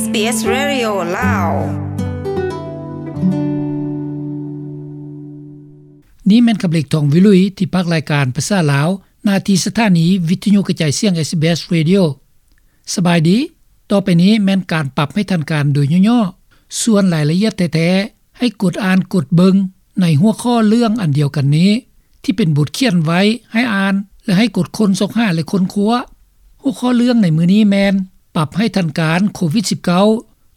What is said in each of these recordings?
SBS Radio ລາວ. ນີ້ແມ່ນຄຳເລັກ ທອງວິລຸຍ ທີ່ພາກລາຍການພາສາລາວ ໜ້າທີ່ສະຖານີວິທະຍຸກະຈາຍສຽງ SBS Radio. ສະບາຍດີ. ຕໍ່ໄປນີ້ແມ່ນການປັບໃຫ້ທັນການໂດຍຫຍໍ້ໆ. ສ່ວນລາຍລະອຽດແທ້ໆ ໃຫ້ກົດອ່ານກົດເບິ່ງໃນຫົວຂໍ້ເລື່ອງອັນດຽວກັນນີ້ ທີ່ເປັນບົດຂຽນໄວ້ໃຫ້ອ່ານ ແລະ ໃຫ້ກົດຄົ້ນຊອກຫາ ແລະ ຄົ້ນຄວ້າ. ຫົວຂໍ້ເລື່ອງໃນມື້ນີ້ແມ່ນ ປັບໃຫ້ທັນການໂຄວິດສິບເກົ້າ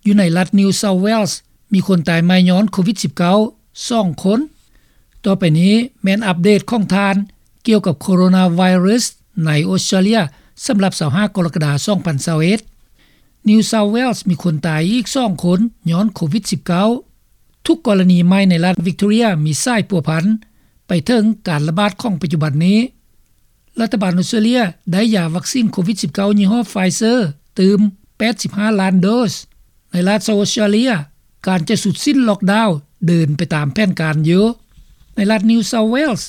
ຢູ່ໃນລັດ New South Wales ມີຄົນຕາຍໃໝ່ຍ້ອນໂຄວິດສິບເກົ້າ ສອງຄົນ. ຕໍ່ໄປນີ້ແມ່ນອັບເດດຂອງທ່ານກ່ຽວກັບໂຄໂຣນາໄວຣັສໃນອົດສະຕຣາເລຍ ສຳລັບຊາວຫ້າກໍລະກະດາ ສອງພັນຊາວເອັດ. New South Wales ມີຄົນຕາຍອີກສອງຄົນຍ້ອນໂຄວິດສິບເກົ້າ. ທຸກກໍລະນີໃໝ່ໃນລັດ Victoria ມີສາຍພົວພັນໄປເຖິງການລະບາດຂອງປັດຈຸບັນນີ້. ລັດຖະບານອົດສະຕຣາເລຍໄດ້ຢາວັກຊີນໂຄວິດສິບເກົ້າ ຍີ່ຫໍ້ Pfizer ຕື່ມ ແປດສິບຫ້າລ້ານໂດສ. ໃນລັດ South Australia ການຈະສຸດສິ້ນລັອກດາວເດີນໄປຕາມແຜນການຢູ່. ໃນລັດ New South Wales,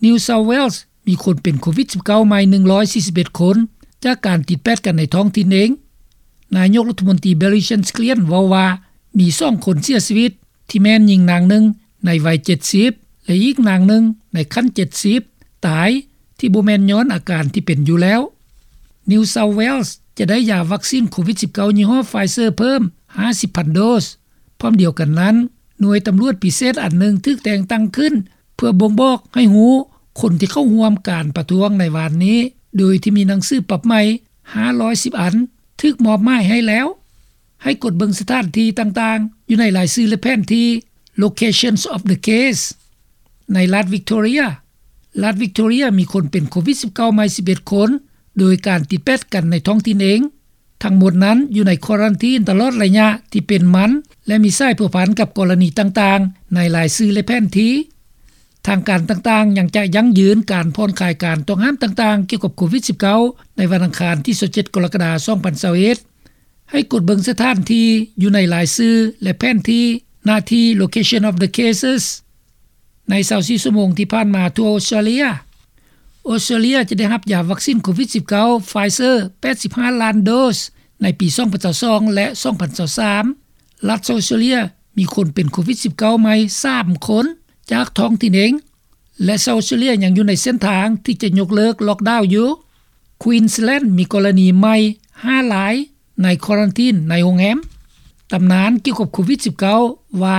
New South Wales ມີຄົນເປັນໂຄວິດສິບເກົ້າໃໝ່ ໜຶ່ງຮ້ອຍສີ່ສິບເອັດຄົນ ຈາກການຕິດແປດກັນໃນທ້ອງຖິ່ນເອງ. ນາຍົກລັດຖະມົນຕີ Bill Shakespeare ເວົ້າວ່າ ມີສອງຄົນເສຍຊີວິດ ທີ່ແມ່ນຍິງນາງໜຶ່ງໃນໄວເຈັດສິບ ແລະ ອີກນາງໜຶ່ງໃນຂັ້ນເຈັດສິບ ຕາຍ ທີ່ບໍ່ແມ່ນຍ້ອນອາການທີ່ເປັນຢູ່ແລ້ວ. New South Wales ຈະໄດ້ຢາວັກຊີນໂຄວິດສິບເກົ້າ ຍີ່ຫໍ້ Pfizer ເພີ່ມ ຫ້າສິບພັນໂດສ. ພ້ອມດຽວກັນນັ້ນ, ໜ່ວຍຕຳຫຼວດພິເສດອັນໜຶ່ງຖືກແຕ່ງຕັ້ງຂຶ້ນ ເພື່ອບົ່ງບອກໃຫ້ຮູ້ຄົນທີ່ເຂົ້າຮ່ວມການປະທ້ວງໃນວານນີ້ ໂດຍທີ່ມີໜັງສືປັບໃໝ່ ຫ້າຮ້ອຍສິບອັນ ຖືກມອບໝາຍໃຫ້ແລ້ວ. ໃຫ້ກົດເບິ່ງສະຖານທີ່ຕ່າງໆ ຢູ່ໃນລາຍຊື່ ແລະ ແຜນທີ່ Locations of the case. ໃນລັດ Victoria, ລັດ Victoria ມີຄົນເປັນໂຄວິດສິບເກົ້າໃໝ່ ສິບເອັດຄົນ ໂດຍການຕິດແປດກັນໃນທ້ອງຖິ່ນເອງ. ທັງໝົດນັ້ນຢູ່ໃນຄວາຣັນທີນຕະຫຼອດໄລຍະທີ່ເປັນມັນ ແລະ ມີສາຍພົວພັນກັບກໍລະນີຕ່າງໆ ໃນລາຍຊື່ ແລະ ແຜນທີ່. ທາງການຕ່າງໆຍັງຈະຢັ້ງຢືນການຜ່ອນຄາຍການຕ້ອງຫ້າມຕ່າງໆ ກ່ຽວກັບໂຄວິດສິບເກົ້າ ໃນວັນອັງຄານທີຊາວເຈັດ ກໍລະກະດາ ສອງພັນຊາວເອັດ. ໃຫ້ກົດເບິ່ງສະຖານທີ່ຢູ່ໃນລາຍຊື່ ແລະ ແຜນທີ່ ໜ້າທີ່ Location of the Cases. ໃນຊາວສີ່ຊົ່ວໂມງທີ່ຜ່ານມາທົ່ວອົດສະຕຣາເລຍ, ອົດສະຕະຣາເລຍຈະໄດ້ຮັບຢາວັກຊີນໂຄວິດສິບເກົ້າ Pfizer ແປດສິບຫ້າລ້ານໂດສ ໃນປີສອງພັນຊາວສອງ ແລະ ສອງພັນຊາວສາມ. ລັດ South Australia ມີຄົນເປັນໂຄວິດສິບເກົ້າໃໝ່ສາມຄົນຈາກທ້ອງຖິ່ນເອງ ແລະ South Australia ຍັງຢູ່ໃນເສັ້ນທາງທີ່ຈະຍົກເລີກລັອກດາວຢູ່. Queensland ມີກໍລະນີໃໝ່ຫ້າລາຍໃນຄວາຣັນທີນໃນໂຮງແຮມ. ຕຳນານກ່ຽວກັບໂຄວິດສິບເກົ້າ ວ່າ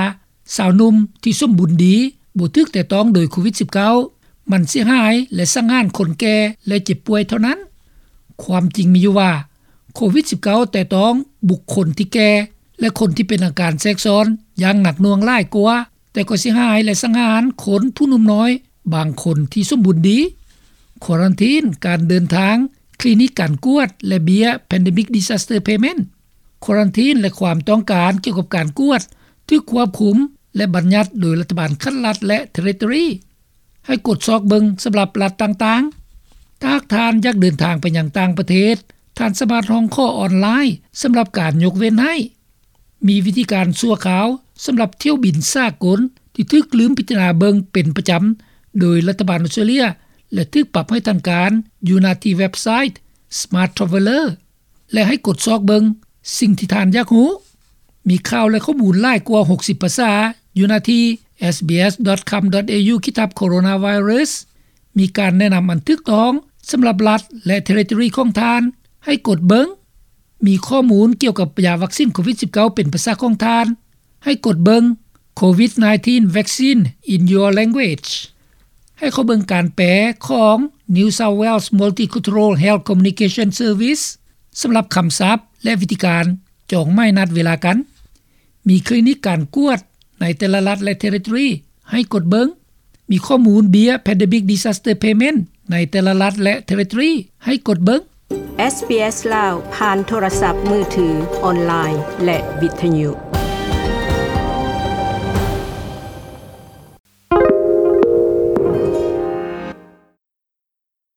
ຊາວໜຸ່ມທີ່ສົມບູນດີບໍ່ຖືກແຕະຕ້ອງໂດຍໂຄວິດສິບເກົ້າ ມັນເສຍຫາຍ ແລະ ສັງຫານຄົນແກ່ ແລະ ເຈັບປ່ວຍເທົ່ານັ້ນ. ຄວາມຈິງມີຢູ່ວ່າ ໂຄວິດສິບເກົ້າ ແຕະຕ້ອງບຸກຄົນທີ່ແກ່ ແລະ ຄົນທີ່ເປັນອາການແຊກຊ້ອນຢ່າງໜັກໜ່ວງຫຼາຍກວ່າ, ແຕ່ກໍເສຍຫາຍ ແລະ ສັງຫານຄົນຜູ້ໜຸ່ມນ້ອຍບາງຄົນທີ່ສົມບູນດີ. ຄວາຣັນທີນ, ການເດີນທາງ, ຄລີນິກການກວດ ແລະ ເບ້ຍ Pandemic Disaster Payment. ຄວາຣັນທີນ ແລະ ຄວາມຕ້ອງການກ່ຽວກັບການກວດຖືກຄວບຄຸມ ແລະ ບັນຍັດໂດຍລັດຖະບານຂັ້ນລັດ ແລະ ເທຣິໂຕຣີ. ໃຫ້ກົດຊອກເບິ່ງສຳລັບລັດຕ່າງໆ. ຖ້າຫາກທ່ານຢາກເດີນທາງໄປຍັງຕ່າງປະເທດ, ທ່ານສາມາດຮ້ອງຂໍອອນລາຍສຳລັບການຍົກເວັ້ນໃຫ້. ມີວິທີການຊົ່ວຄາວສຳລັບຖ້ຽວບິນສາກົນທີ່ຖືກລືມພິຈາລະນາເບິ່ງເປັນປະຈຳໂດຍລັດຖະບານອົດສະຕຣາເລຍ ແລະ ຖືກປັບໃຫ້ທັນການຢູ່ໜ້າທີ່ເວັບໄຊ Smart Traveller. ແລະ ໃຫ້ກົດຊອກເບິ່ງສິ່ງທີ່ທ່ານຢາກຮູ້. ມີຂ່າວ ແລະ ຂໍ້ມູນຫຼາຍກວ່າຫົກສິບພາສາຢູ່ໜ້າທີ່ sbs.com.au ຂີດທັບ coronavirus. ມີການແນະນຳອັນຖືກຕ້ອງສຳລັບລັດ ແລະ ເທຣິໂຕຣີຂອງທ່ານໃຫ້ກົດເບິ່ງ. ມີຂໍ້ມູນກ່ຽວກັບຢາວັກຊີນໂຄວິດສິບເກົ້າເປັນພາສາຂອງທ່ານ ໃຫ້ກົດເບິ່ງ Covid nineteen vaccine in your language. ໃຫ້ເຂົ້າເບິ່ງການແປຂອງ New South Wales Multicultural Health Communication Service ສຳລັບຄຳສັບ ແລະ ວິທີການຈອງໝາຍນັດເວລາກັນ. ມີຄລີນິກການກວດໃນແຕ່ລະລັດ ແລະ ເທຣິໂຕຣີ ໃຫ້ກົດເບິ່ງ. ມີຂໍ້ມູນເບ້ຍ Pandemic Disaster Payment ໃນແຕ່ລະລັດ ແລະ ເທຣິໂຕຣີ ໃຫ້ກົດເບິ່ງ. SBS ລາວ ຜ່ານໂທລະສັບມືຖື, ອອນລາຍ ແລະ ວິທະຍຸ.